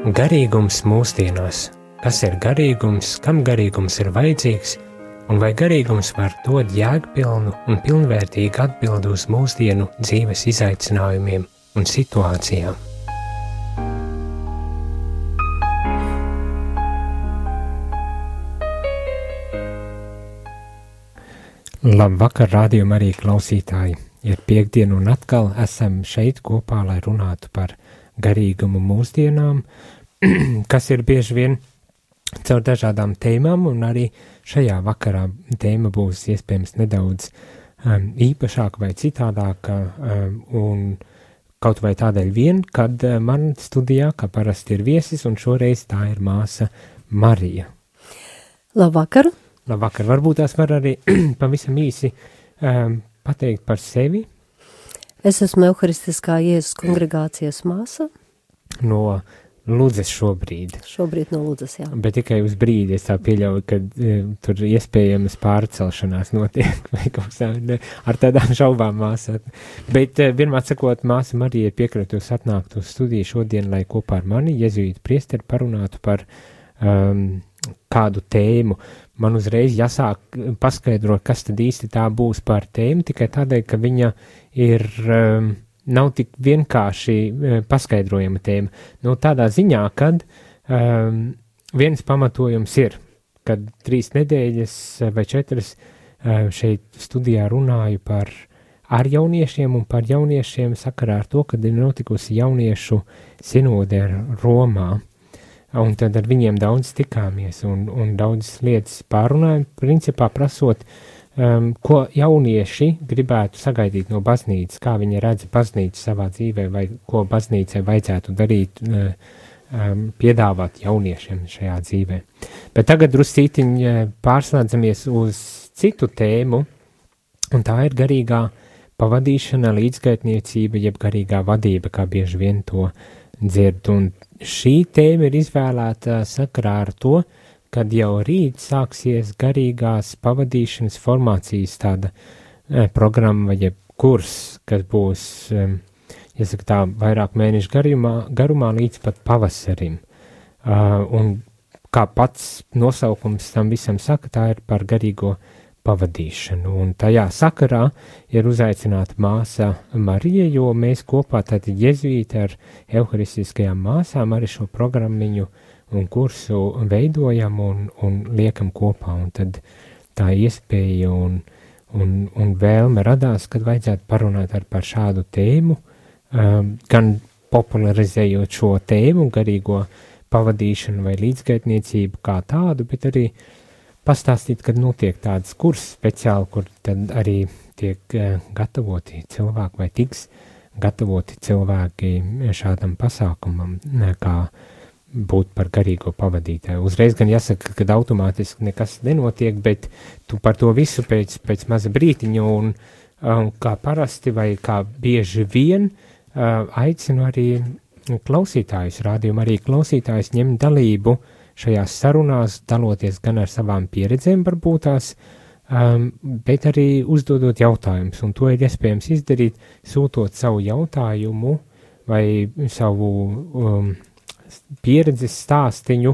Garīgums mūsdienās. Kas ir garīgums, kam garīgums ir vajadzīgs, un vai garīgums var dot jēgpilnu un pilnvērtīgu atbildi uz mūsdienu dzīves izaicinājumiem un situācijām? Labvakar, rādījuma arī klausītāji! Ir piektdiena un atkal esam šeit kopā, lai runātu par garīgumu mūsdienām, kas ir bieži vien caur dažādām tēmām, un arī šajā vakarā tēma būs iespējams nedaudz īpašāka vai citādāka, un kaut vai tādēļ vien, kad man studijā, kā parasti ir viesis, un šoreiz tā ir māsa Marija. Labvakar! Labvakar! Varbūt tās var arī pavisam īsi pateikt par sevi. Es esmu Euharistiskā Jēzus kongregācijas māsa. No Ludzes šobrīd. Šobrīd no Ludzes, jā. Bet tikai uz brīdi es tā pieļauju, ka tur iespējamas pārcelšanās notiek vai kaut kā ar tādām šaubām māsā. Bet vienmēr sakot, māsa Marija ir piekritusi atnākt uz studiju šodien, lai kopā ar mani, jezuītu priesteri, parunātu par kādu tēmu. Man uzreiz jāsāk paskaidrot, kas tad īsti tā būs par tēmu, tikai tādēļ, ka viņa ir... nav tik vienkārši paskaidrojama tēma. Nu, tādā ziņā, kad viens pamatojums ir, kad 3 nedēļas vai 4 šeit studijā runāju ar jauniešiem un par jauniešiem sakarā ar to, kad ir notikusi jauniešu sinode Romā. Un tad ar viņiem daudz tikāmies un daudz lietas pārunājam, principā prasot, ko jaunieši gribētu sagaidīt no baznīcas, kā viņi redz baznīcu savā dzīvē, vai ko baznīcai vajadzētu darīt, piedāvāt jauniešiem šajā dzīvē. Bet tagad druscītiņi pārslēdzamies uz citu tēmu, un tā ir garīgā pavadīšana, līdzgaitniecība, jeb garīgā vadība, kā bieži vien to dzird. Un šī tēma ir izvēlēta sakarā ar to, kad jau rīt sāksies garīgās pavadīšanas formācijas tāda programma vai kurs, kas būs, jāsaka tā, vairāk mēnešu garumā līdz pat pavasarim. Un kā pats nosaukums tam visam saka, tā ir par garīgo pavadīšanu. Un tajā sakarā ir uzaicināta māsa Marija, jo mēs kopā tātad jezuīti ar euharistiskajām māsām arī šo programmiņu un kursu veidojam un liekam kopā, un tad tā iespēja un vēlme radās, kad vajadzētu parunāt par šādu tēmu, gan popularizējot šo tēmu, garīgo pavadīšanu vai līdzgaitniecību kā tādu, bet arī pastāstīt, kad notiek tāds kurs speciāli, kur tad arī tiek gatavoti cilvēki vai tiks gatavoti cilvēki šādam pasākumam, kā būt par garīgo pavadītāju. Uzreiz gan jāsaka, ka automātiski nekas nenotiek, bet tu par to visu pēc maza brītiņa un kā parasti vai kā bieži vien aicinu arī klausītājus, rādījumu arī klausītājus ņemt dalību šajās sarunās, daloties gan ar savām pieredzēm varbūtās, bet arī uzdodot jautājumus, un to ir iespējams izdarīt, sūtot savu jautājumu vai savu pieredzes stāstiņu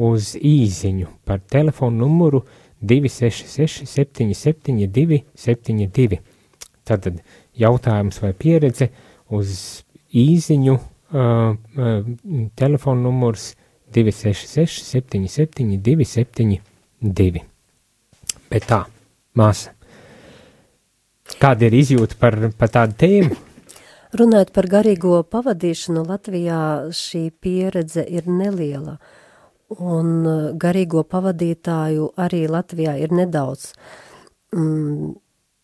uz īziņu par telefonu numuru 266 772 72. Tātad jautājums vai pieredze uz īziņu, telefonu numurs 266 772 72. Bet tā, māsa, kāda ir izjūta par tādu tēmu? Runājot par garīgo pavadīšanu, Latvijā šī pieredze ir neliela, un garīgo pavadītāju arī Latvijā ir nedaudz.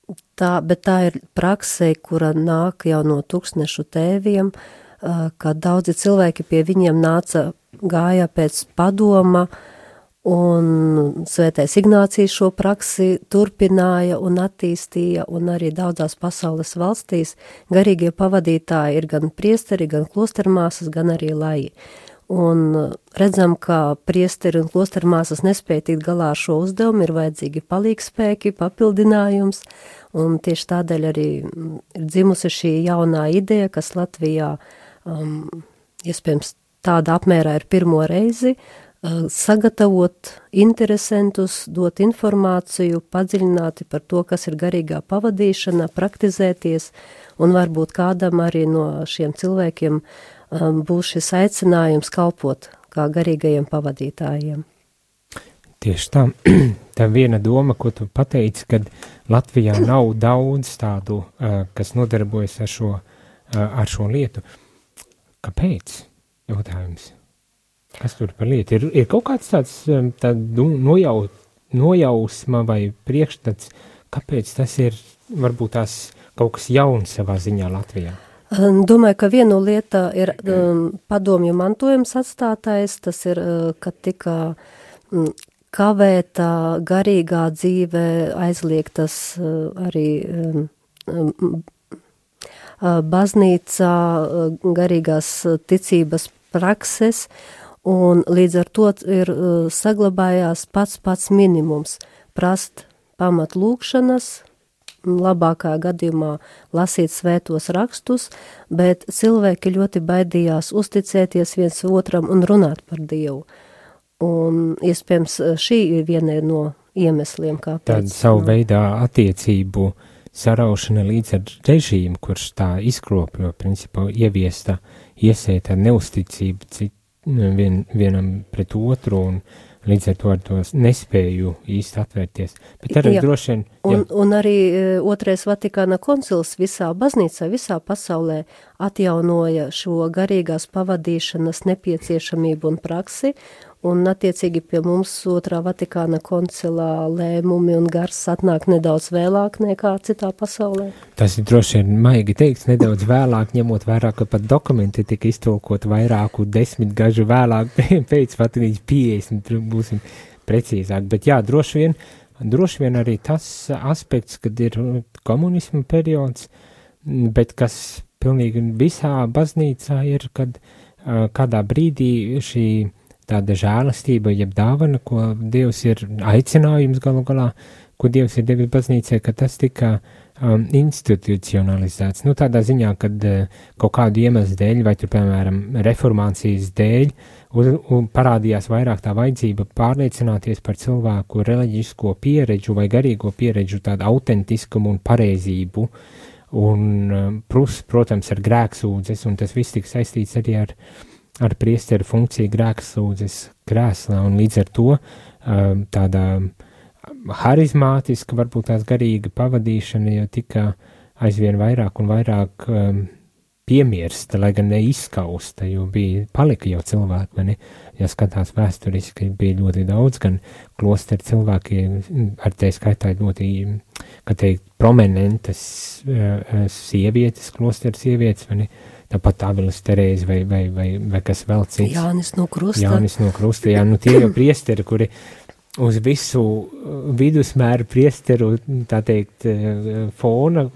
Bet tā ir praksē, kura nāk jau no tūkstnešu tēviem, kad daudzi cilvēki pie viņiem gāja pēc padoma, un Svētais Ignācijs šo praksi turpināja un attīstīja, un arī daudzās pasaules valstīs garīgie pavadītāji ir gan priesteri, gan klostermāsas, gan arī laji. Un redzam, ka priesteri un klostermāsas nespēja tikt galā ar šo uzdevumu, ir vajadzīgi palīgspēki, papildinājums, un tieši tādēļ arī ir dzimusi šī jaunā ideja, kas Latvijā iespējams tāda apmērā ir pirmo reizi, sagatavot interesantus, dot informāciju, padziļināti par to, kas ir garīgā pavadīšana, praktizēties, un varbūt kādam arī no šiem cilvēkiem būs šis aicinājums kalpot kā garīgajiem pavadītājiem. Tieši tā. Tā viena doma, ko tu pateici, kad Latvijā nav daudz tādu, kas nodarbojas ar šo lietu. Kāpēc? Jautājums. Kas tur par lietu? Ir kaut kāds tāds nojausma vai priekšstats, kāpēc tas ir varbūt tās kaut kas jauns savā ziņā Latvijā? Domāju, ka viena lieta ir padomju mantojums atstātais, tas ir, kad tika kavēta garīgā dzīve, aizliegtas arī baznīcā garīgās ticības prakses, un līdz ar to ir saglabājās pats minimums prast pamat lūkšanas, labākā gadījumā lasīt svētos rakstus, bet cilvēki ļoti baidījās uzticēties viens otram un runāt par Dievu. Un iespējams šī ir viena no iemesliem, kāpēc. Tāda savu veidā attiecību saraušana līdz ar režīmu, kurš tā izkropļo, principā ieviesta, iesēta neusticība vienam pret otru un līdz ar to nespēju īsti atvērties. Bet arī droši vien... Un arī otrais Vatikāna koncils visā baznīcā, visā pasaulē atjaunoja šo garīgās pavadīšanas nepieciešamību un praksi, un attiecīgi pie mums otrā Vatikāna koncilā lēmumi un gars atnāk nedaudz vēlāk nekā citā pasaulē. Tas ir droši vien maigi teikts, nedaudz vēlāk, ņemot vērā, ka pat dokumenti tika iztulkot vairāku 10 gažu vēlāk, pēc pat līdz 50, būsim precīzāk. Bet jā, droši vien arī tas aspekts, kad ir komunisma periods, bet kas pilnīgi visā baznīcā ir, kad kādā brīdī šī tāda žēlastība, jeb dāvana, ko Dievs ir aicinājums galu galā, ko Dievs ir devis baznīcai, ka tas tika institucionalizēts. Nu, tādā ziņā, kad kaut kādu iemeslu dēļ, vai tur, piemēram, reformācijas dēļ, parādījās vairāk tā vajadzība pārliecināties par cilvēku reliģisko pieredžu vai garīgo pieredžu, tādu autentiskumu un pareizību, un, protams, ar grēksūdzes, un tas viss tika saistīts arī ar priesteru funkciju grēksūdzes krēslā, un līdz ar to tāda harizmātiska, varbūt tās garīga pavadīšana jau tika aizvien vairāk un vairāk piemirsta, lai gan neizskausta, jo palika jau cilvēki, vai ne? Ja skatās vēsturiski, bija ļoti daudz, gan klosteru cilvēki, ar te skaitā ļoti, kā teikt, prominentas sievietes, klosteru sievietes, vai ne? Tāpat Avilas Terēze vai kas vēl cits. Jānis no Krusta, jā, nu tie jau priesteri, kuri uz visu vidusmēru priesteru, tā teikt, fona,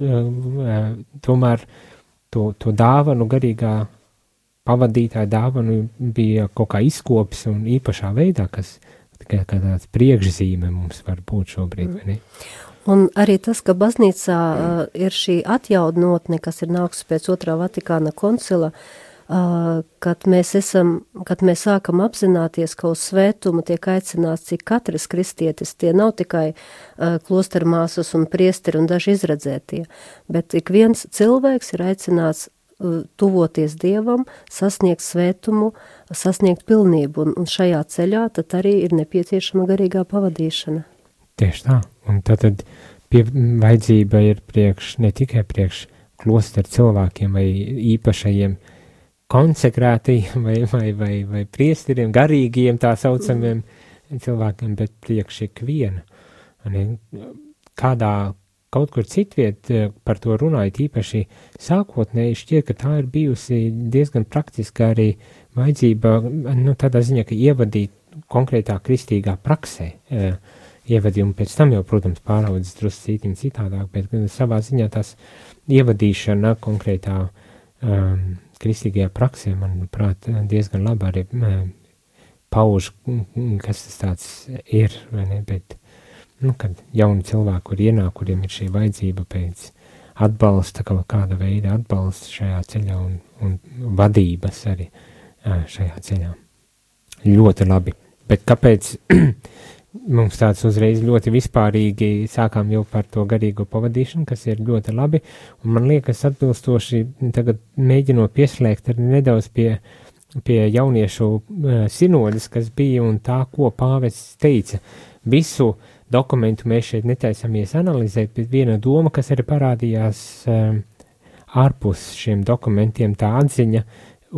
tomēr to dāvanu, garīgā pavadītāja dāvanu bija kaut kā izkopis un īpašā veidā, kas tikai kā tāds priekšzīme mums var būt šobrīd, vai ne? Un arī tas, ka baznīcā ir šī atjaunotne, kas ir nākusi pēc otrā Vatikāna koncila, kad mēs sākam apzināties, ka uz svētumu tiek aicināts cik katrs kristietis, tie nav tikai klostermāsas un priesteri un daži izredzētie, bet ik viens cilvēks ir aicināts tuvoties Dievam, sasniegt svētumu, sasniegt pilnību, un šajā ceļā tad arī ir nepieciešama garīgā pavadīšana. Tieši tā, un tad vajadzība ir ne tikai priekš klosteru cilvēkiem vai īpašajiem konsekrētajiem vai priesteriem, garīgiem tā saucamiem cilvēkiem, bet priekš ikviena. Kaut kur citviet par to runājot, īpaši sākotnēji šķiet, ka tā ir bijusi diezgan praktiska arī vajadzība, nu, tādā ziņā, ka ievadīt konkrētā kristīgā praksē, ievadījumu pēc tam jau, protams, pāraudzes drusku citādāk, bet savā ziņā tās ievadīšana konkrētā kristīgajā praksē, manuprāt, diezgan labi arī pauž, kas tas tāds ir, vai ne, bet, nu, kad jauni cilvēki, kur ienāk, kuriem ir šī vajadzība pēc atbalsta, kaut kāda veida atbalsta šajā ceļā un vadības arī šajā ceļā. Ļoti labi. Bet kāpēc mums tāds uzreiz ļoti vispārīgi sākām jau par to garīgo pavadīšanu, kas ir ļoti labi, un man liekas atbilstoši tagad mēģinot pieslēgt arī nedaudz pie jauniešu sinodas, kas bija un tā, ko pāvests teica. Visu dokumentu mēs šeit netaisamies analizēt, bet viena doma, kas arī parādījās ārpus šiem dokumentiem, tā atziņa,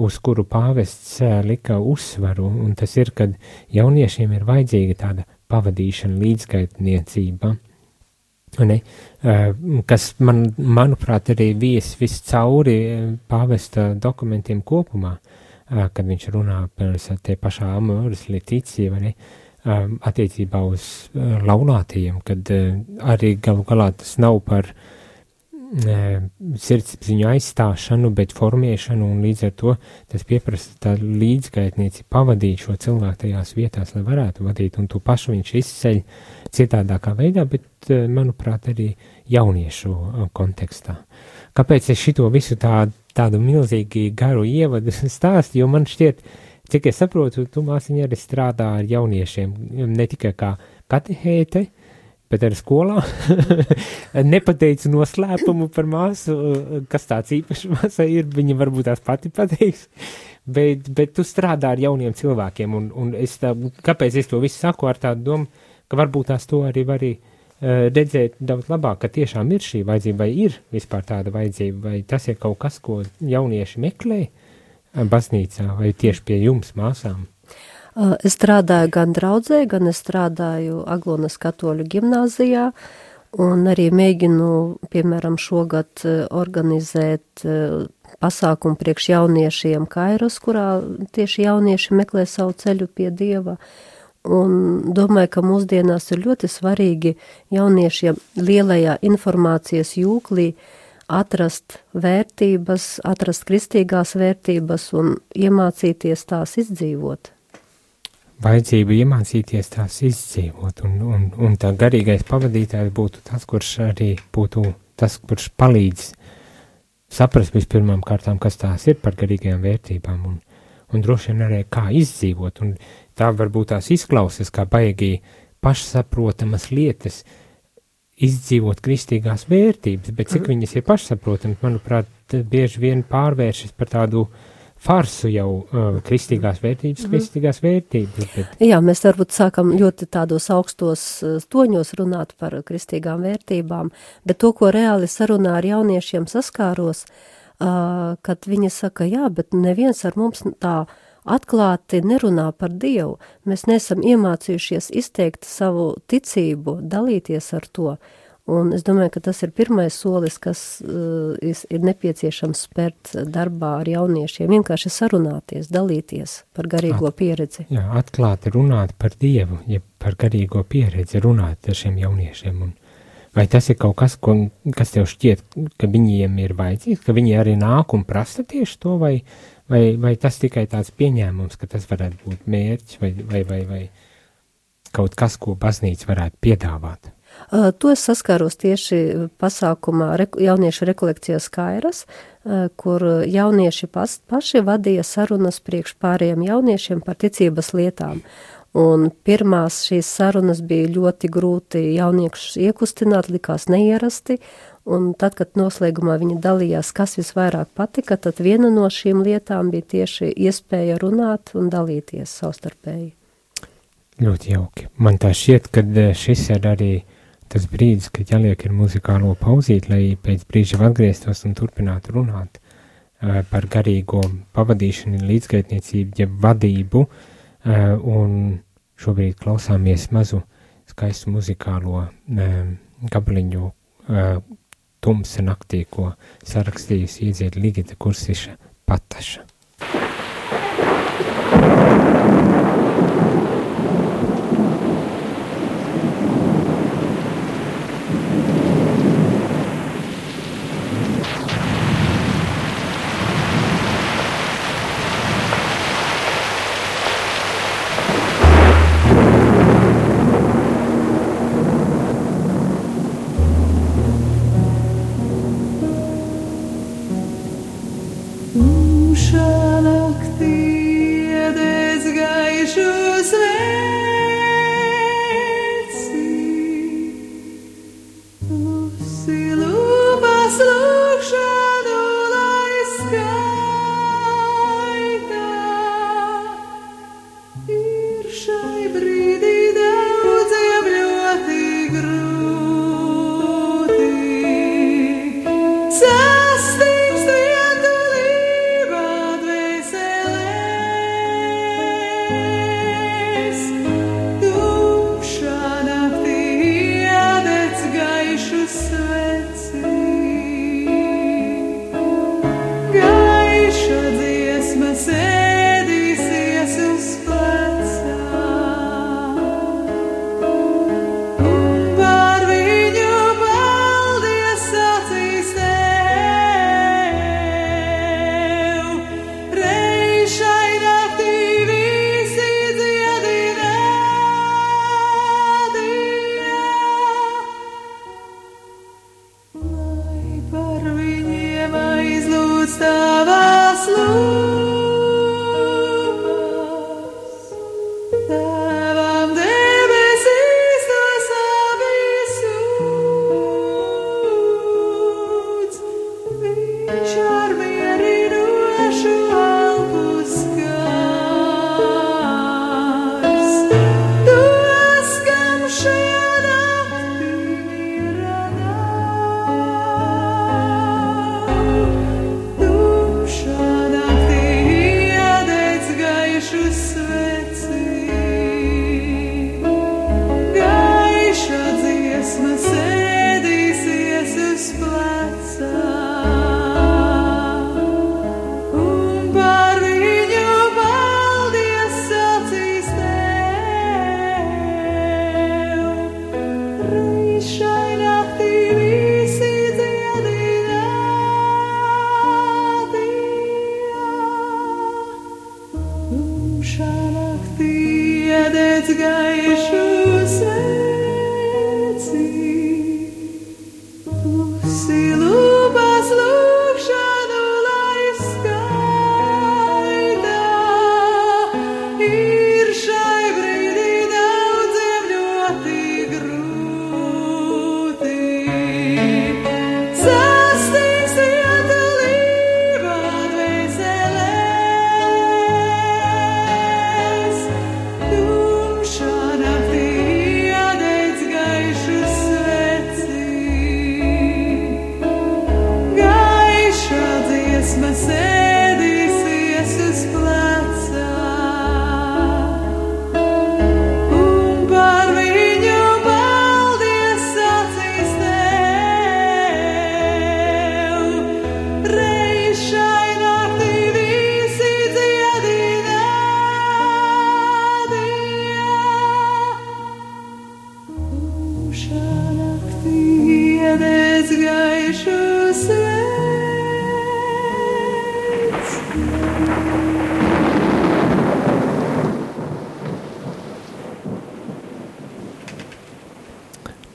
uz kuru pāvests lika uzsvaru, un tas ir, kad jauniešiem ir vajadzīga tāda pavadīšana, līdzgaitniecība, ne? Kas manuprāt, arī viss cauri pāvesta dokumentiem kopumā, kad viņš runā par tie pašā Amoris Laetitia, vai ne? Attiecībā uz laulātajiem, kad arī galu galā tas nav par sirdsapziņu aizstāšanu, bet formēšanu, un līdz ar to tas pieprasa tā līdzgaitnieci pavadīt šo cilvēku tajās vietās, lai varētu vadīt, un to pašu viņš izceļ citādākā veidā, bet, manuprāt, arī jauniešu kontekstā. Kāpēc es šito visu tādu milzīgi garu ievadu stāstu, jo man šķiet, cik es saprotu, tu māsiņa arī strādā ar jauniešiem, ne tikai kā katehēte, bet arī skolā. Nepateicu noslēpumu par māsu, kas tāds īpašs māsai ir, viņa varbūt tās pati pateiks, bet tu strādā ar jauniem cilvēkiem, un kāpēc es to visu saku ar tādu domu, ka varbūt tās to arī var redzēt daudz labāk, ka tiešām ir šī vajadzība, vai ir vispār tāda vajadzība, vai tas ir kaut kas, ko jaunieši meklē baznīcā, vai tieši pie jums, māsām? Es strādāju gan draudzē, gan es strādāju Aglonas katoļu gimnāzijā, un arī mēģinu, piemēram, šogad organizēt pasākumu priekš jauniešiem Kairos, kurā tieši jaunieši meklē savu ceļu pie Dieva. Un domāju, ka mūsdienās ir ļoti svarīgi jauniešiem lielajā informācijas jūklī atrast vērtības, atrast kristīgās vērtības un iemācīties tās izdzīvot. Vajadzība iemācīties tās izdzīvot, un tā garīgais pavadītājs būtu tas, kurš arī būtu tas, kurš palīdz saprast vispirmām kārtām, kas tās ir par garīgajām vērtībām, un droši vien arī kā izdzīvot, un tā varbūt tās izklausas kā baigi pašsaprotamas lietas, izdzīvot kristīgās vērtības, bet cik viņas ir pašsaprotamas, manuprāt, bieži vien pārvēršas par tādu farsu jau kristīgās vērtības. Bet... Jā, mēs varbūt sākam ļoti tādos augstos toņos runāt par kristīgām vērtībām, bet to, ko reāli sarunā ar jauniešiem saskāros, kad viņi saka, jā, bet neviens ar mums tā atklāti nerunā par Dievu. Mēs neesam iemācījušies izteikt savu ticību, dalīties ar to. Un es domāju, ka tas ir pirmais solis, kas ir nepieciešams spērt darbā ar jauniešiem, vienkārši sarunāties, dalīties par garīgo pieredzi. Jā, atklāti runāt par Dievu, ja par garīgo pieredzi runāt ar šiem jauniešiem. Un vai tas ir kaut kas, kas tev šķiet, ka viņiem ir vajadzīgs, ka viņi arī nāk un prasa tieši to, vai tas tikai tāds pieņēmums, ka tas varētu būt mērķis vai kaut kas, ko baznīca varētu piedāvāt? To es saskāros tieši pasākumā jauniešu rekolekcijas Kairas, kur jaunieši paši vadīja sarunas priekš pārējiem jauniešiem par ticības lietām. Un pirmās šīs sarunas bija ļoti grūti jauniešus iekustināt, likās neierasti, un tad, kad noslēgumā viņi dalījās, kas visvairāk patika, tad viena no šīm lietām bija tieši iespēja runāt un dalīties savstarpēji. Ļoti jauki. Man tā šķiet, ka šis ir arī tas brīdis, kad jāliek ir muzikālo pauzīt, lai pēc brīža atgrieztos un turpinātu runāt par garīgo pavadīšanu, līdzgaitniecību, ja vadību, un šobrīd klausāmies mazu skaistu muzikālo gabaliņu Tumsa naktī, ko sarakstījusi iedzied Ligita Kursiša Pataša.无声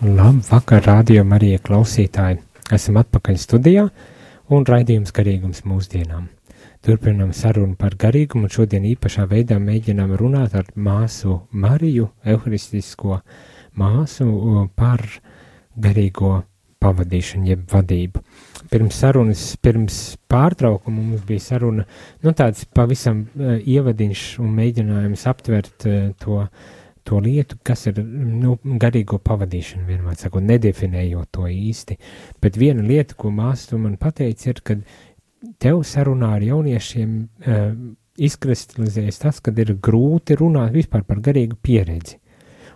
Labvakar, rādījuma arī klausītāji. Esam atpakaļ studijā un raidījums garīgums mūsdienām. Turpinām sarunu par garīgumu un šodien īpašā veidā mēģinām runāt ar māsu Mariju, evharistisko māsu, par garīgo pavadīšanu, jeb vadību. Pirms pārtraukuma mums bija saruna, tāds pavisam ievadiņš un mēģinājums aptvert to lietu, kas ir garīgo pavadīšanu, vienmēr sakot, nedefinējot to īsti. Bet viena lieta, ko māsa tu man pateica, ir, kad tev sarunā ar jauniešiem izkristalizējas tas, kad ir grūti runāt vispār par garīgu pieredzi.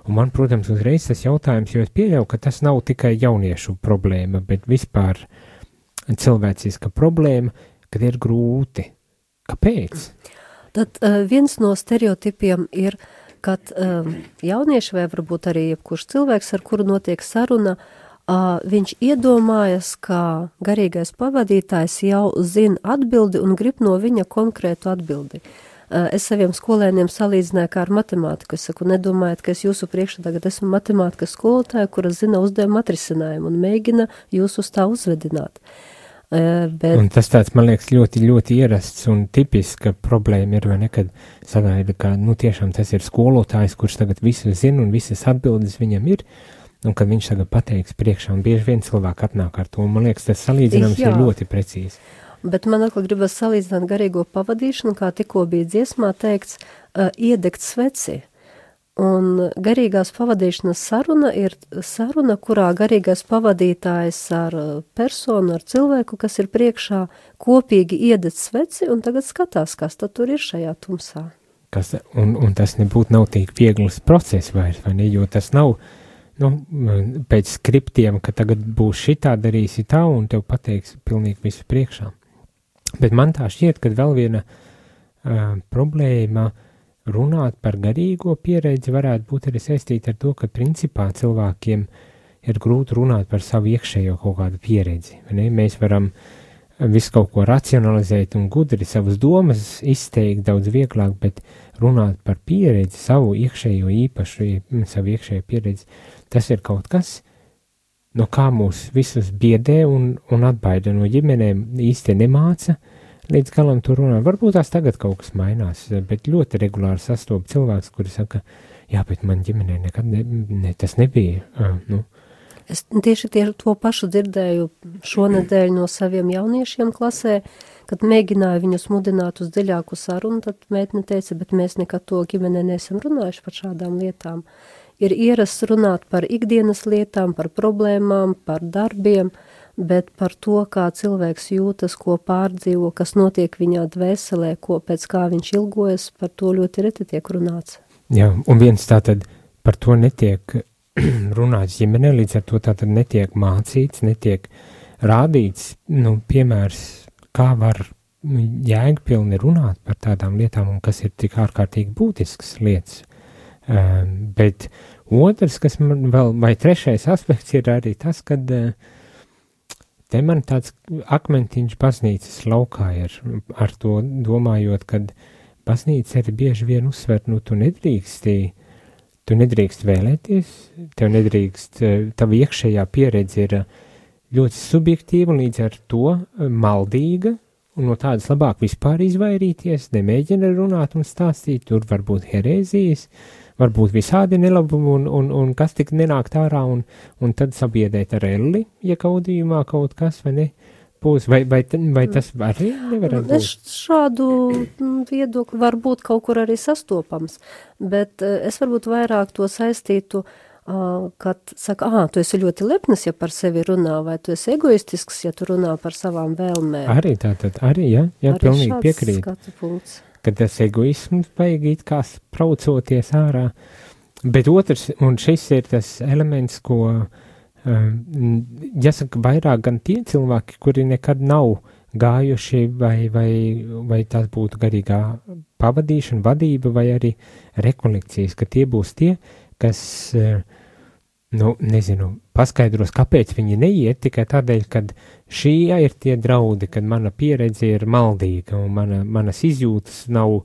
Un man, protams, uzreiz tas jautājums, jo es pieļauju, ka tas nav tikai jauniešu problēma, bet vispār cilvēciska problēma, kad ir grūti. Kāpēc? Tad viens no stereotipiem ir, kad jaunieši vai varbūt arī jebkurš cilvēks, ar kuru notiek saruna, viņš iedomājas, ka garīgais pavadītājs jau zina atbildi un grib no viņa konkrētu atbildi. Es saviem skolēniem salīdzināju kā ar matemātiku. Es saku, nedomājiet, ka es jūsu priekšā tagad esmu matemātikas skolotāja, kura zina uzdevumu atrisinājumu un mēģina jūs uz tā uzvedināt. Un tas tāds, man liekas, ļoti, ļoti ierasts un tipiska problēma ir, vai nekad sagaida, ka, tiešām tas ir skolotājs, kurš tagad visu zina un visas atbildes viņam ir, un kad viņš tagad pateiks priekšā, un bieži vien cilvēki atnāk ar to, un man liekas, tas salīdzinājums ir ļoti precīzi. Bet man atkal gribas salīdzināt garīgo pavadīšanu, kā tikko bija dziesmā teikts, iedegt sveci. Un garīgās pavadīšanas saruna ir saruna, kurā garīgais pavadītājs ar personu, ar cilvēku, kas ir priekšā, kopīgi iedeg sveci un tagad skatās, kas tad tur ir šajā tumsā. Un tas nebūtu nav tik viegls process vairs, vai ne, jo tas nav pēc skriptiem, ka tagad būs šitā, darīsi tā, un tev pateiks pilnīgi visu priekšā. Bet man tā šķiet, ka vēl viena problēma runāt par garīgo pieredzi varētu būt arī saistīta ar to, ka principā cilvēkiem ir grūti runāt par savu iekšējo kaut kādu pieredzi. Ne? Mēs varam visu kaut ko racionalizēt un gudri savas domas izteikt daudz vieglāk, bet runāt par pieredzi, savu iekšējo īpašu, savu iekšējo pieredzi, tas ir kaut kas, no kā mūs visus biedē un atbaida no ģimenēm, īsti nemāca līdz galam to runāt. Varbūt tās tagad kaut kas mainās, bet ļoti regulāri sastop cilvēks, kuri saka, jā, bet man ģimenē nekad tas nebija. Es tieši to pašu dzirdēju šonedēļ no saviem jauniešiem klasē, kad mēģināju viņus mudināt uz dziļāku sarunu, tad meitne teica, bet mēs nekad to ģimenē neesam runājuši par šādām lietām. Ir ierasts runāt par ikdienas lietām, par problēmām, par darbiem, bet par to, kā cilvēks jūtas, ko pārdzīvo, kas notiek viņā dvēselē, pēc kā viņš ilgojas, par to ļoti reti tiek runāts. Jā, un viens tātad par to netiek runāts ģimenē, līdz ar to tātad netiek mācīts, netiek rādīts, piemērs, kā var jēgpilni runāt par tādām lietām, un kas ir tik ārkārtīgi būtisks lietas. Bet otrs, kas man vēl, vai trešais aspekts ir arī tas, kad te man tāds akmentiņš baznīcas laukā ir ar to domājot, kad baznīca arī bieži vien uzsver, tu nedrīkst vēlēties, tev nedrīkst, tava iekšējā pieredze ir ļoti subjektīva, līdz ar to maldīga, un no tādas labāk vispār izvairīties, nemēģina runāt un stāstīt, tur var būt herēzijas, varbūt visādi nelabumi, un kas tik nenākt ārā, un tad sabiedēt ar elli, ja kaudījumā kaut kas, vai ne, būs, vai tas arī nevarētu būt? Šādu viedokli var būt kaut kur arī sastopams, bet es varbūt vairāk to saistītu, kad saka, tu esi ļoti lepnis, ja par sevi runā, vai tu esi egoistisks, ja tu runā par savām vēlmēm. Arī tātad, jā, pilnīgi piekrīt. Kad tas egoisms vajag it kā spraucoties ārā, bet otrs, un šis ir tas elements, ko, jāsaka, vairāk gan tie cilvēki, kuri nekad nav gājuši, vai tas būtu garīgā pavadīšana, vadība, vai arī rekolekcijas, ka tie būs tie, kas, paskaidros, kāpēc viņi neiet, tikai tādēļ, kad šī ir tie draudi, kad mana pieredze ir maldīga, un manas izjūtas nav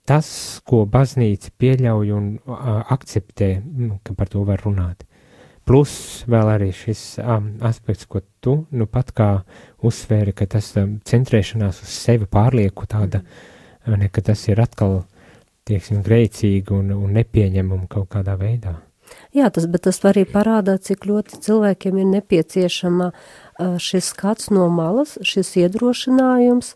tas, ko baznīca pieļauj un akceptē, ka par to var runāt. Plus vēl arī šis aspekts, ko tu pat kā uzsvēri, ka tas centrēšanās uz sevi pārlieku tāda, ka tas ir atkal, tieksim, grēcīgi un nepieņemami kaut kādā veidā. Jā, bet tas arī parādā, cik ļoti cilvēkiem ir nepieciešama šis skats no malas, šis iedrošinājums,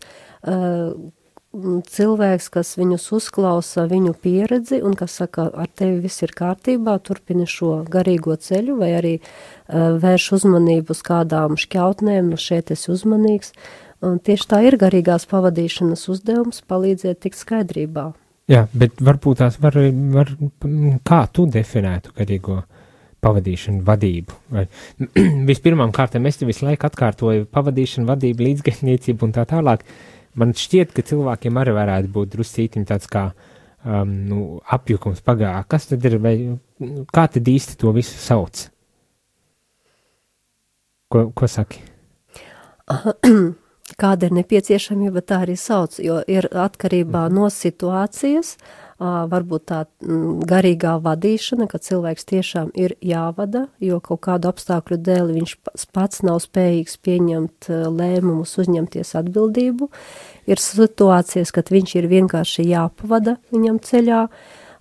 cilvēks, kas viņus uzklausa viņu pieredzi un kas saka, ar tevi viss ir kārtībā, turpini šo garīgo ceļu vai arī vērš uzmanību uz kādām šķautnēm, šeit esi uzmanīgs. Un tieši tā ir garīgās pavadīšanas uzdevums palīdzēt tikt skaidrībā. Jā, bet varbūt tās var kā tu definētu garīgo pavadīšanu, vadību? Vai, vispirmām kārtām es te visu laiku atkārtoju pavadīšanu, vadību, līdzgaitniecību un tā tālāk. Man šķiet, ka cilvēkiem arī varētu būt druscītiņ tāds kā apjukums pagā. Kas tad ir, vai kā tad īsti to visu sauc? Ko saki? Kāda ir nepieciešamība, tā arī sauc, jo ir atkarībā no situācijas, varbūt tā garīgā vadīšana, kad cilvēks tiešām ir jāvada, jo kaut kādu apstākļu dēļ viņš pats nav spējīgs pieņemt lēmumus, uzņemties atbildību. Ir situācijas, kad viņš ir vienkārši jāpavada viņam ceļā.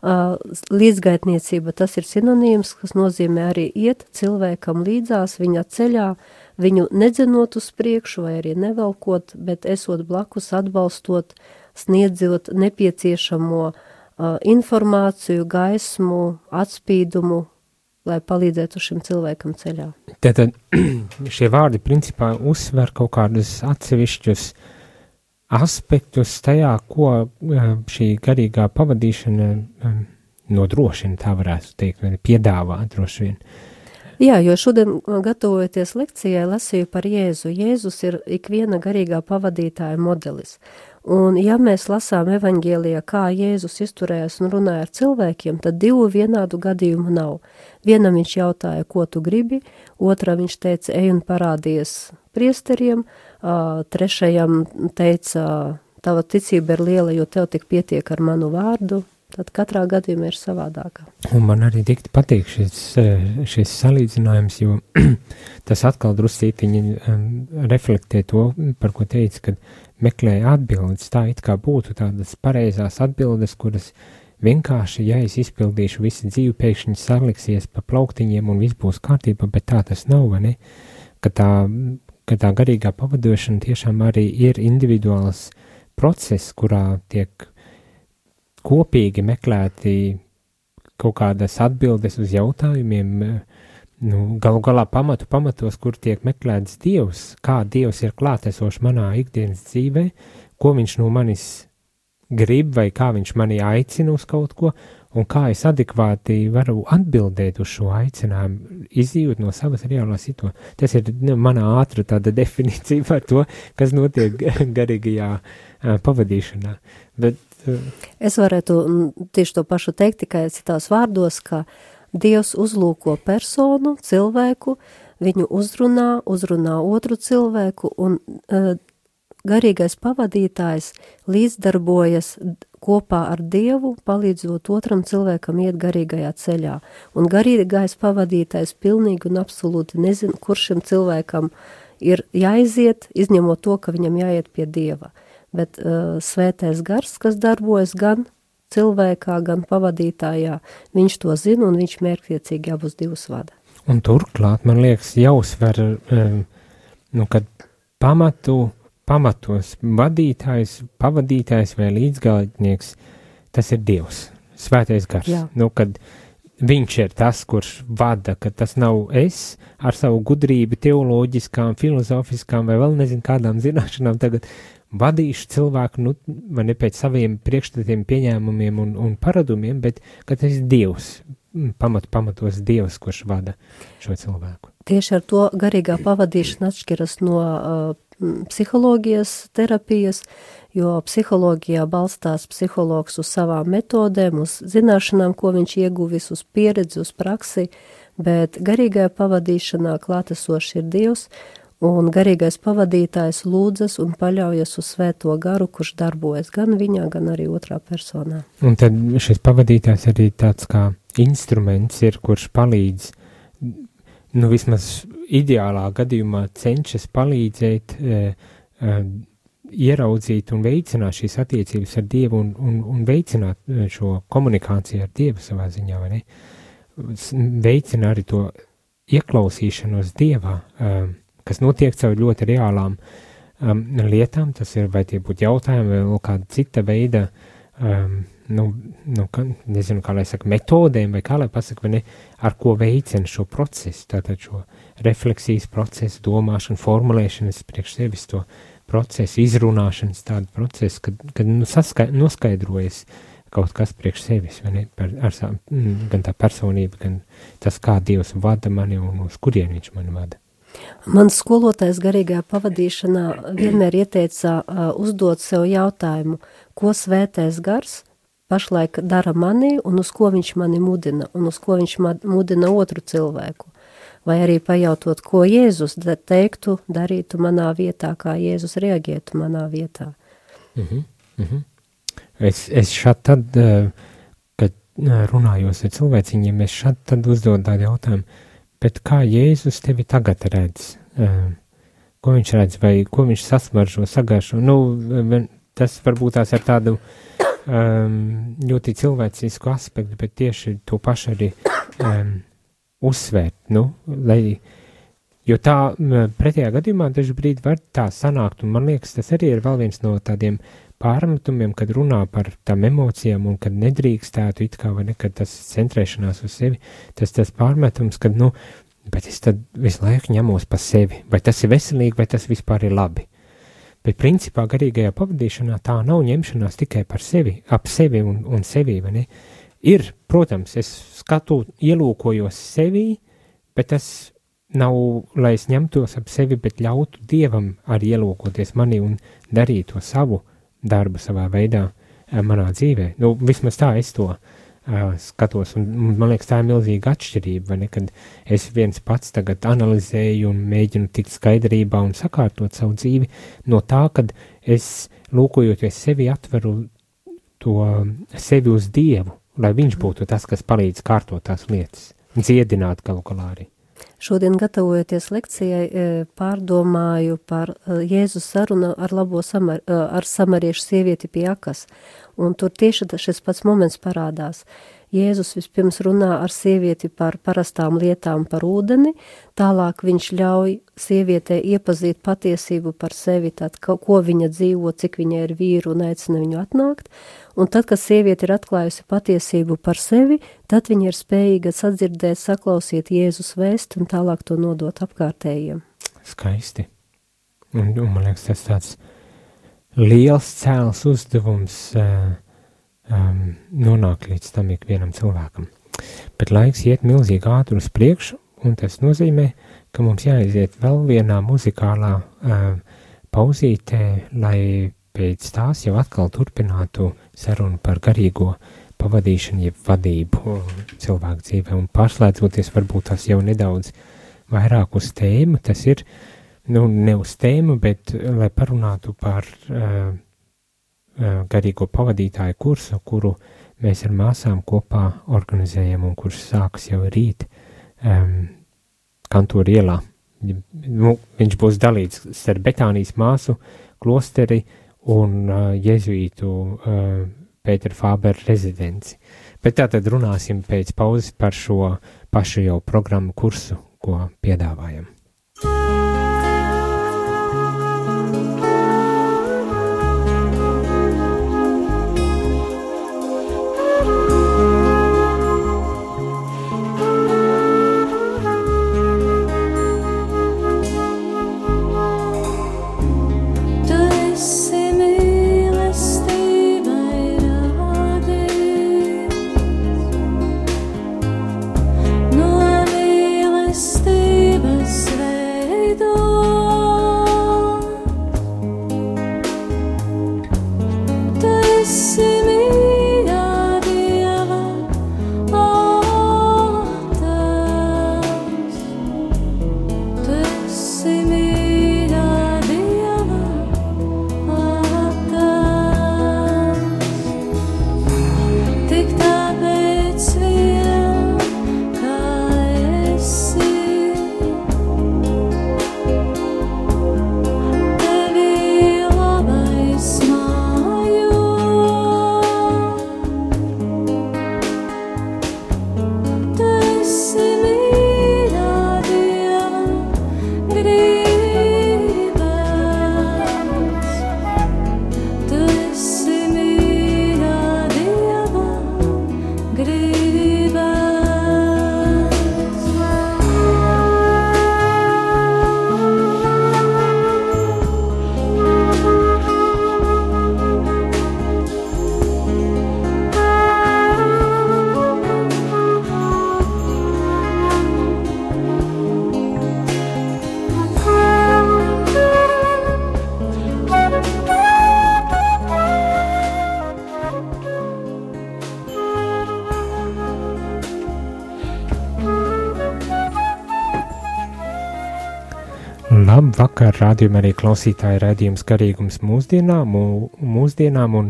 Līdzgaitniecība, tas ir sinonīms, kas nozīmē arī iet cilvēkam līdzās viņa ceļā, viņu nedzenot uz priekšu vai arī nevelkot, bet esot blakus, atbalstot, sniedzot nepieciešamo informāciju, gaismu, atspīdumu, lai palīdzētu šim cilvēkam ceļā. Tātad šie vārdi principā uzsver kaut kādus atsevišķus aspektus tajā, ko šī garīgā pavadīšana nodrošina, tā varētu teikt, vai piedāvā droši vien. Jā, jo šodien gatavojoties lekcijai lasīju par Jēzu. Jēzus ir ikviena garīgā pavadītāja modelis. Un ja mēs lasām evaņģēlijā, kā Jēzus izturējās un runāja ar cilvēkiem, tad divu vienādu gadījumu nav. Vienam viņš jautāja, ko tu gribi, otram viņš teica, ej un parādies priesteriem, trešajam teica, tava ticība ir liela, jo tev tik pietiek ar manu vārdu. Tad katrā gadījumā ir savādākā. Un man arī dikti patīk šis salīdzinājums, jo tas atkal druscītiņi reflektē to, par ko teica, kad meklēja atbildes. Tā it kā būtu tādas pareizās atbildes, kuras vienkārši, ja es izpildīšu visu dzīvi, pēkšņi saliksies pa plauktiņiem un viss būs kārtībā, bet tā tas nav, vai ne? Ka tā garīgā pavadošana tiešām arī ir individuāls process, kurā tiek kopīgi meklēti kaut kādas atbildes uz jautājumiem, galu galā pamatos, kur tiek meklēts Dievs, kā Dievs ir klātesošs manā ikdienas dzīvē, ko viņš no manis grib vai kā viņš mani aicina uz kaut ko, un kā es adekvāti varu atbildēt uz šo aicinājumu, izdzīvot no savas reālās situācijas. Tas ir manā ātra tāda definīcija par to, kas notiek garīgajā pavadīšanā. Bet es varētu tieši to pašu teikt, tikai citās vārdos, ka Dievs uzlūko personu, cilvēku, viņu uzrunā otru cilvēku un garīgais pavadītājs līdzdarbojas kopā ar Dievu, palīdzot otram cilvēkam iet garīgajā ceļā. Un garīgais pavadītājs pilnīgi un absolūti nezina, kur šim cilvēkam ir jāiziet, izņemot to, ka viņam jāiet pie Dieva. Bet svētais gars, kas darbojas gan cilvēkā, gan pavadītājā, viņš to zina un viņš mērķtiecīgi abus divus vada. Un turklāt, man liekas, jāuzsver, kad pamatos vadītājs, pavadītājs vai līdzgalotnieks, tas ir Dievs, svētais gars. Jā. Kad viņš ir tas, kurš vada, ka tas nav es ar savu gudrību, teoloģiskām, filozofiskām vai vēl nezinu kādām zināšanām tagad vadīšu cilvēku, vai ne pēc saviem priekšstatiem, pieņēmumiem un paradumiem, bet ka tas ir Dievs, pamatos Dievs, kurš vada šo cilvēku. Tieši ar to garīgā pavadīšana atšķiras no psiholoģijas terapijas, jo psiholoģijā balstās psihologs uz savām metodēm, uz zināšanām, ko viņš ieguvis, uz pieredzi, uz praksi, bet garīgajā pavadīšanā klātesošs ir Dievs, un garīgais pavadītājs lūdzas un paļaujas uz svēto garu, kurš darbojas gan viņā, gan arī otrā personā. Un tad šis pavadītājs arī tāds kā instruments ir, kurš palīdz, vismaz ideālā gadījumā cenšas palīdzēt, ieraudzīt un veicināt šīs attiecības ar Dievu un veicināt šo komunikāciju ar Dievu savā ziņā, vai ne? Veicina arī to ieklausīšanos Dievā, kas notiek caur ļoti reālām lietām, tas ir, vai tie būtu jautājumi, vai vēl kāda cita veida, nezinu, kā lai saka, metodēm, vai kā lai pasaka, vai ne, ar ko veicina šo procesu, tātad šo refleksijas procesu, domāšanu, formulēšanas priekš sevis to procesu, izrunāšanas tādu procesu, kad noskaidrojas kaut kas priekš sevis, vai ne, gan tā personība, gan tas, kā Dievs vada mani un uz kurien viņš mani vada. Mans skolotājs garīgajā pavadīšanā vienmēr ieteica uzdot sev jautājumu, ko svētais gars pašlaik dara manī un uz ko viņš mani mudina, un uz ko viņš mudina otru cilvēku. Vai arī pajautot, ko Jēzus teiktu, darītu manā vietā, kā Jēzus reaģētu manā vietā. Es šādi tad, kad runājos ar cilvēciņiem, es šādi tad uzdodu tādu jautājumu, bet kā Jēzus tevi tagad redz? Ko viņš redz, vai ko viņš sasmaržo, sagaršo? Tas varbūt tās ar tādu ļoti cilvēcisku aspektu, bet tieši to pašu arī uzsvērt, jo tā pretējā gadījumā daži brīdi var tā sanākt, un man liekas, tas arī ir vēl viens no tādiem pārmetumiem, kad runā par tām emocijām un kad nedrīkstētu it kā, vai ne, kad tas centrēšanās uz sevi, tas pārmetums, kad, bet es tad visu laiku ņemos pa sevi, vai tas ir veselīgi, vai tas vispār ir labi. Bet principā garīgajā pavadīšanā tā nav ņemšanās tikai par sevi, ap sevi un sevi, vai ne? Ir, protams, es ielūkojos sevī, bet tas nav, lai es ņemtos ap sevi, bet ļautu Dievam arī ielūkoties mani un darīt to savu darbu savā veidā manā dzīvē. Vismaz tā es to skatos, un man liekas, tā ir milzīga atšķirība, vai ne, kad es viens pats tagad analizēju un mēģinu tikt skaidrībā un sakārtot savu dzīvi no tā, kad es lūkojoties sevi atveru to sevi uz Dievu, lai viņš būtu tas, kas palīdz kārtot tās lietas, dziedināt galu galā arī. Šodien, gatavojoties lekcijai, pārdomāju par Jēzus sarunu ar samariešu sievieti pie akas, un tur tieši šis pats moments parādās. Jēzus vispirms runā ar sievieti par parastām lietām par ūdeni, tālāk viņš ļauj sievietei iepazīt patiesību par sevi, tad, ko viņa dzīvo, cik viņa ir vīru un aicina viņu atnākt, un tad, kad sieviete ir atklājusi patiesību par sevi, tad viņa ir spējīga sadzirdēt, saklausīt Jēzus vēsti un tālāk to nodot apkārtējiem. Skaisti. Un man liekas, tas tāds liels cēls uzdevums nonāk līdz tam ikvienam cilvēkam. Bet laiks iet milzīgi ātri uz priekšu, un tas nozīmē, ka mums jāiziet vēl vienā muzikālā pauzītē, lai pēc tās jau atkal turpinātu sarunu par garīgo pavadīšanu, jeb vadību cilvēku dzīvē, un pārslēdzoties varbūt tās jau nedaudz vairāk uz tēmu, tas ir ne uz tēmu, bet lai parunātu par garīgo pavadītāju kursu, kuru mēs ar māsām kopā organizējam un kurš sāks jau rīt Kantoru ielā. Viņš būs dalīts starp Betānijas māsu klosteri un jezuītu Pētera Fābera rezidenci. Bet tātad runāsim pēc pauzes par šo pašu jau programmu kursu, ko piedāvājam. Labvakar, rādījumā arī klausītāji raidījums Garīgums mūsdienām un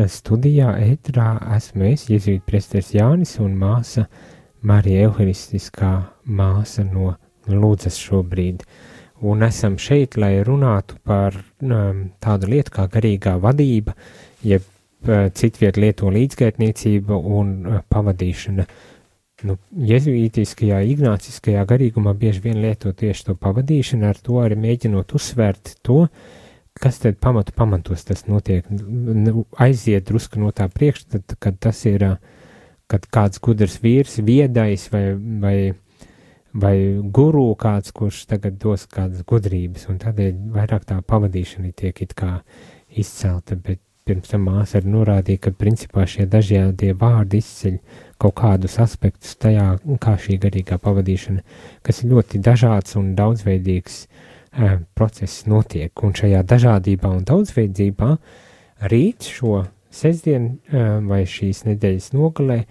studijā ētrā esmu es, jezuītu priesteris Jānis un māsa Marija Euharistiskā māsa no Lūdzas šobrīd. Un esam šeit, lai runātu par tādu lietu kā garīgā vadība, jeb citviet lieto līdzgaitniecība un pavadīšana. Jezuītiskajā, ignāciskajā garīgumā bieži vien lieto tieši to pavadīšanu, ar to arī mēģinot uzsvērt to, kas tad pamatos tas notiek, aiziet drusku no tā priekšstata, kad tas ir, kad kāds gudrs vīrs, viedais vai guru kāds, kurš tagad dos kādas gudrības, un tādēļ vairāk tā pavadīšana tiek it kā izcelta, bet pirms tam māsa arī norādīja, ka principā šie dažādie vārdi izceļ kaut kādus aspektus tajā, kā šī garīgā pavadīšana, kas ir ļoti dažāds un daudzveidīgs process notiek. Un šajā dažādībā un daudzveidībā rīt šo sestdienu vai šīs nedēļas nogalē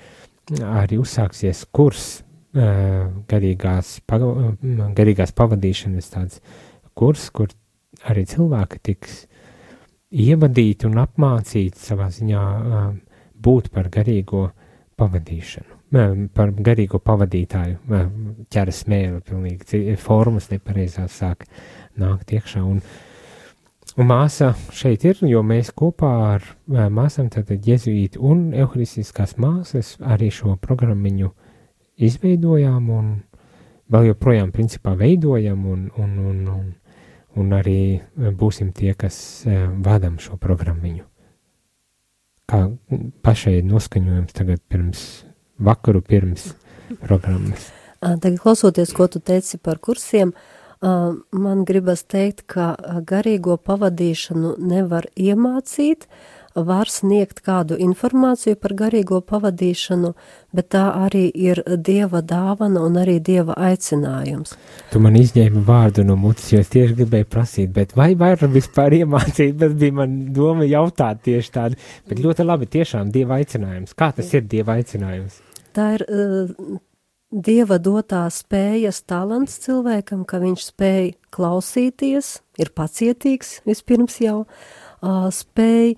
arī uzsāksies kurs garīgās pavadīšanas tāds kurs, kur arī cilvēki tiks ievadīti un apmācīti savā ziņā būt par garīgo pavadīšanu, par garīgo pavadītāju, ķera smēle, pilnīgi formas nepareizās sāk nākt iekšā. Un māsa šeit ir, jo mēs kopā ar māsām, tātad jezuīti un euharistiskās māsas, arī šo programmiņu izveidojām un vēl joprojām principā veidojam un arī būsim tie, kas vadam šo programmiņu. Kā pašai noskaņojums tagad pirms programmas. Tagad klausoties, ko tu teici par kursiem, man gribas teikt, ka garīgo pavadīšanu nevar iemācīt, var sniegt kādu informāciju par garīgo pavadīšanu, bet tā arī ir Dieva dāvana un arī Dieva aicinājums. Tu man izņēmi vārdu no mutes, jo es tieši gribēju prasīt, bet vai var vispār iemācīt, bet bija man doma jautāt tieši tādu, bet ļoti labi tiešām Dieva aicinājums. Kā tas ir Dieva aicinājums? Tā ir Dieva dotā spējas talants cilvēkam, ka viņš spēj klausīties, ir pacietīgs vispirms jau, spēj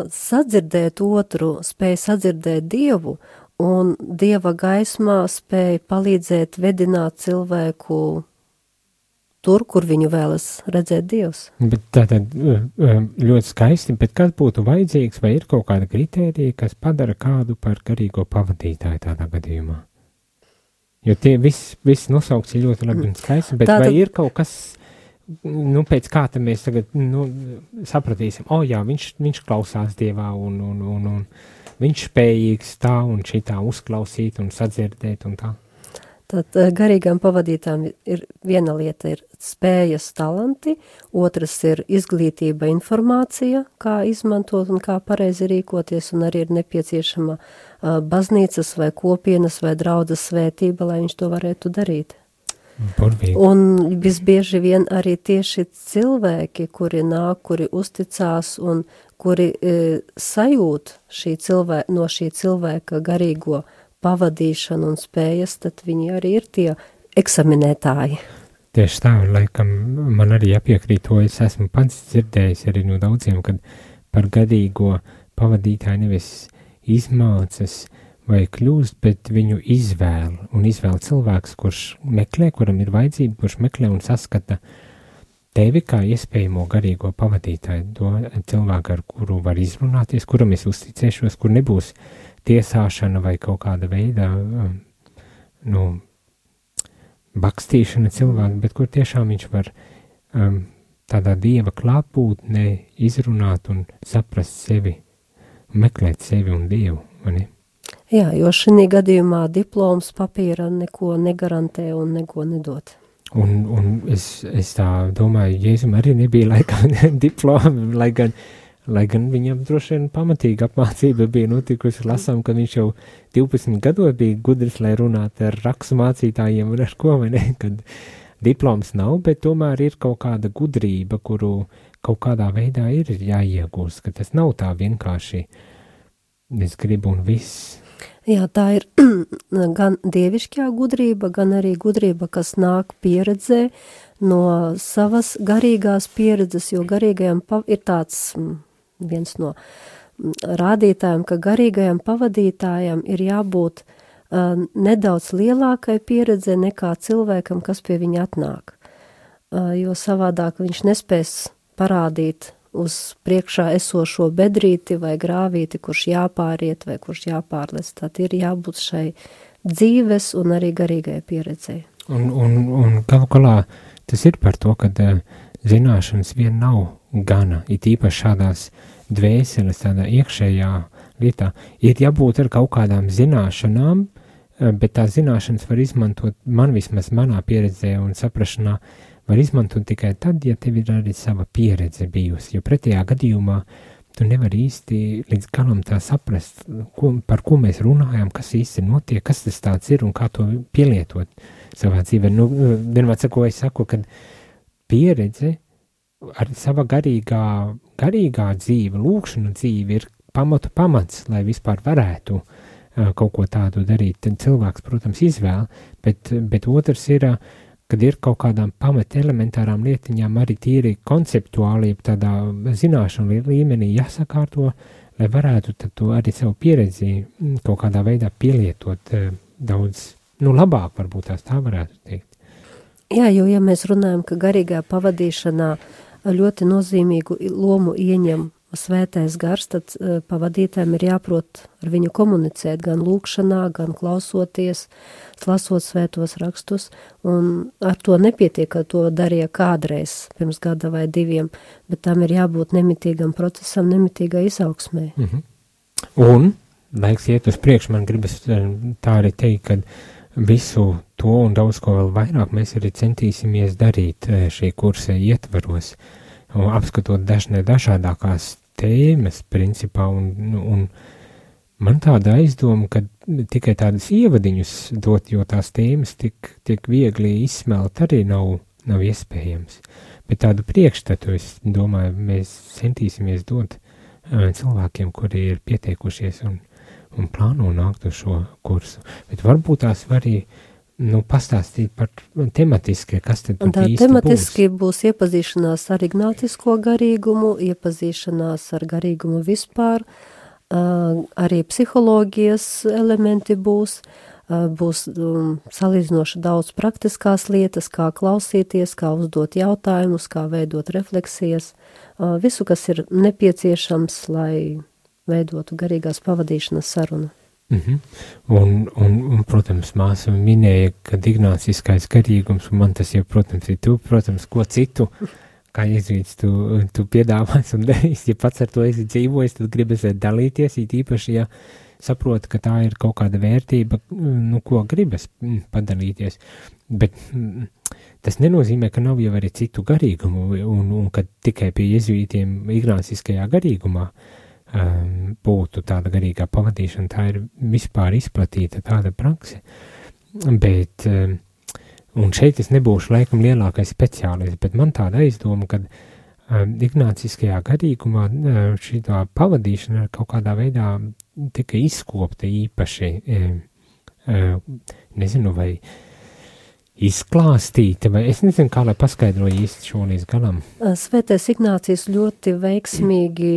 sadzirdēt otru, spēj sadzirdēt Dievu, un Dieva gaismā spēj palīdzēt vedināt cilvēku tur, kur viņu vēlas redzēt Dievs. Bet tātad ļoti skaisti, bet kas būtu vajadzīgs, vai ir kaut kāda kritērija, kas padara kādu par garīgo pavadītāju tādā gadījumā? Jo tie viss nosaukts ir ļoti labi un skaisti, bet vai ir kaut kas, pēc kā te mēs tagad, sapratīsim, jā, viņš klausās Dievā un viņš spējīgs tā un šitā uzklausīt un sadzirdēt un tā? Tad garīgām pavadītām ir viena lieta ir spējas talanti, otras ir izglītība, informācija, kā izmantot un kā pareizi rīkoties, un arī ir nepieciešama baznīcas vai kopienas vai draudzes svētība, lai viņš to varētu darīt. Burvīgi. Un visbieži vien arī tieši cilvēki, kuri nāk, kuri uzticās un kuri sajūt no šī cilvēka garīgo pavadīšanu un spējas, tad viņi arī ir tie eksaminētāji. Tieši tā, laikam man arī jāpiekrīt to, es esmu pats dzirdējis arī no daudziem, kad par garīgo pavadītāju nevis izmācas vai kļūst, bet viņu izvēl cilvēks, kurš meklē, kuram ir vajadzība, kurš meklē un saskata tevi kā iespējamo garīgo pavadītāju, to cilvēku, ar kuru var izrunāties, kuram es uzticēšos, kur nebūs tiesāšana vai kaut kāda veida bakstīšana cilvēku, bet kur tiešām viņš var tādā Dieva klātbūtnē izrunāt un saprast sevi, meklēt sevi un Dievu, vai ne? Jā, jo šī gadījumā diploms papīra neko negarantē un neko nedod. Un es tā domāju, Jēzum arī nebija laikam diplomi, lai gan viņam droši vien pamatīga apmācība bija notikusi, lasām, ka viņš jau 12 gados bija gudrs, lai runātu ar rakstu mācītājiem un ar ko, vai ne, kad diploms nav, bet tomēr ir kaut kāda gudrība, kuru kaut kādā veidā ir jāiegūst, ka tas nav tā vienkārši, es gribu un viss. Jā, tā ir gan dievišķā gudrība, gan arī gudrība, kas nāk pieredzē no savas garīgās pieredzes, jo garīgajam ir tāds viens no rādītājiem, ka garīgajam pavadītājam ir jābūt nedaudz lielākai pieredze nekā cilvēkam, kas pie viņa atnāk. Jo savādāk viņš nespēs parādīt uz priekšā esošo bedrīti vai grāvīti, kurš jāpāriet vai kurš jāpārlec. Tad ir jābūt šai dzīves un arī garīgai pieredzei. Un galu galā tas ir par to, ka zināšanas vien nav gana, it īpaši šādās dvēseles, tādā iekšējā lietā. Ir jābūt ar kaut kādām zināšanām, bet tās zināšanas var izmantot, man vismaz manā pieredzē un saprašanā, var izmantot tikai tad, ja tev ir arī sava pieredze bijusi, jo pretējā gadījumā tu nevari īsti līdz galam tā saprast, par ko mēs runājam, kas īsti notiek, kas tas tāds ir un kā to pielietot savā dzīvē. Vienmēr es saku, ka pieredze ar sava garīgā dzīve, lūkšana dzīve ir pamats, lai vispār varētu kaut ko tādu darīt. Tad cilvēks, protams, izvēl, bet otrs ir, kad ir kaut kādām pamat elementārām lietiņām arī tīri konceptuāli, tādā zināšanu līmenī jāsakārto, lai varētu tad to arī savu pieredzi kaut kādā veidā pielietot daudz, labāk varbūt tā varētu teikt. Jā, jo ja mēs runājam, ka garīgā pavadīšanā ļoti nozīmīgu lomu ieņem svētais gars, tad pavadītājiem ir jāprot ar viņu komunicēt gan lūkšanā, gan klausoties, lasot svētos rakstus, un ar to nepietiek, ka to darīja kādreiz pirms gada vai 2, bet tam ir jābūt nemitīgam procesam, nemitīgai izaugsmē. Un, laiks iet uz priekšu, man gribas tā arī teikt, ka visu to un daudz ko vēl vairāk mēs arī centīsimies darīt šī kursa ietvaros, apskatot dažādākās tēmas principā, un man tāda aizdoma, ka tikai tādas ievadiņus dot, jo tās tēmas tik viegli izsmelt arī nav iespējams. Bet tādu priekšstatu, es domāju, mēs centīsimies dot cilvēkiem, kuri ir pieteikušies un un plāno nākt uz šo kursu. Bet varbūt tās var arī pastāstīt par tematiski, kas tad tur īsti tematiski būs iepazīšanās ar ignācisko garīgumu, iepazīšanās ar garīgumu vispār, arī psiholoģijas elementi būs salīdzinoši daudz praktiskās lietas, kā klausīties, kā uzdot jautājumus, kā veidot refleksijas, visu, kas ir nepieciešams, lai veidotu garīgās pavadīšanas sarunu. Un, protams, māsa minēja, ka ignāciskais garīgums, un man tas jau, protams, ir tu, protams, ko citu, kā jēzuīts, tu piedāvās un darīs, ja pats ar to esi dzīvojis, tad gribas dalīties, īpaši, ja saproti, ka tā ir kaut kāda vērtība, ko gribas padalīties, bet tas nenozīmē, ka nav jau arī citu garīgumu, un ka tikai pie jēzuītiem ignāciskajā garīgumā būtu tāda garīgā pavadīšana, tā ir vispār izplatīta tāda prakse, bet, un šeit es nebūšu laikam lielākais speciālists, bet man tāda aizdoma, ka ignāciskajā garīgumā šī pavadīšana kaut kādā veidā tika izkopta īpaši, nezinu, vai izklāstīta, vai es nezinu, kā lai paskaidroju īsti šo līdz galam. Svētais Ignācijs ļoti veiksmīgi,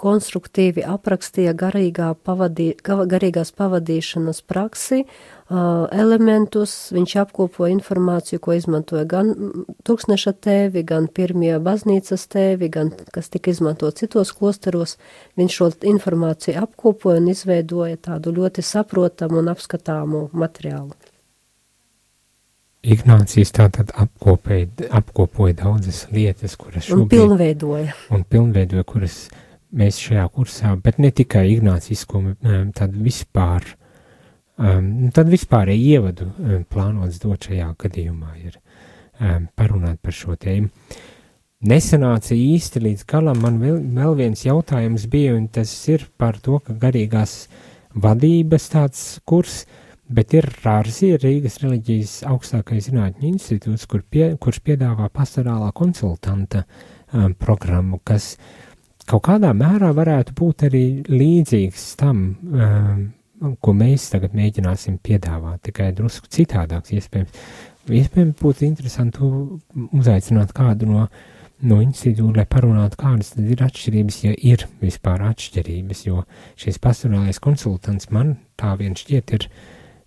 konstruktīvi aprakstīja garīgās pavadīšanas praksi, elementus, viņš apkopoja informāciju, ko izmantoja gan Tūkstneša tēvi, gan pirmie baznīcas tēvi, gan kas tika izmantot citos klosteros. Viņš šo informāciju apkopoja un izveidoja tādu ļoti saprotamu un apskatāmu materiālu. Ignācijs tātad apkopoja daudzas lietas, kuras šobrīd... Un pilnveidoja, kuras mēs šajā kursā, bet ne tikai ignācisko, tad vispārēji ievadu plānots dot šajā gadījumā ir parunāt par šo tēmu. Nesanāca īsti līdz galam, man vēl viens jautājums bija, un tas ir par to, ka garīgās vadības tāds kurs, bet ir RARZI, Rīgas reliģijas augstākais zinātņu institūts, kurš piedāvā pastorālā konsultanta programmu, kas kaut kādā mērā varētu būt arī līdzīgs tam, ko mēs tagad mēģināsim piedāvāt, tikai drusku citādāks iespējams. Iespējams būtu interesanti uzaicināt kādu no institūta, lai parunātu, kādas tad ir atšķirības, ja ir vispār atšķirības, jo šis pastorālais konsultants man tā vien šķiet ir,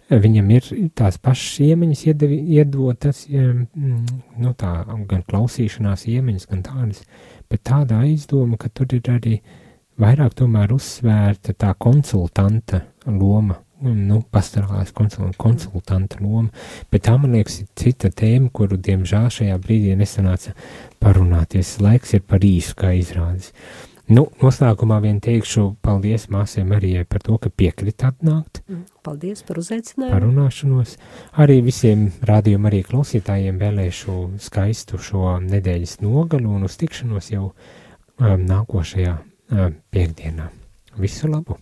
viņam ir tās pašas iemaņas iedotas, tā gan klausīšanās iemaņas, gan tādas, bet tāda aizdoma, ka tur ir arī vairāk tomēr uzsvērta tā konsultanta loma, pastorālās konsultanta loma, bet tā, man liekas, ir cita tēma, kuru, diemžēl, šajā brīdī nesanāca parunāties. Laiks ir par īsu, kā izrādes. Noslēgumā vien teikšu paldies māsai Marijai par to, ka piekrita atnākt. Paldies par uzaicinājumu. Parunāšanos. Arī visiem rādījuma arī klausītājiem vēlēšu skaistu šo nedēļas nogalu un uz tikšanos jau nākošajā piekdienā. Visu labu!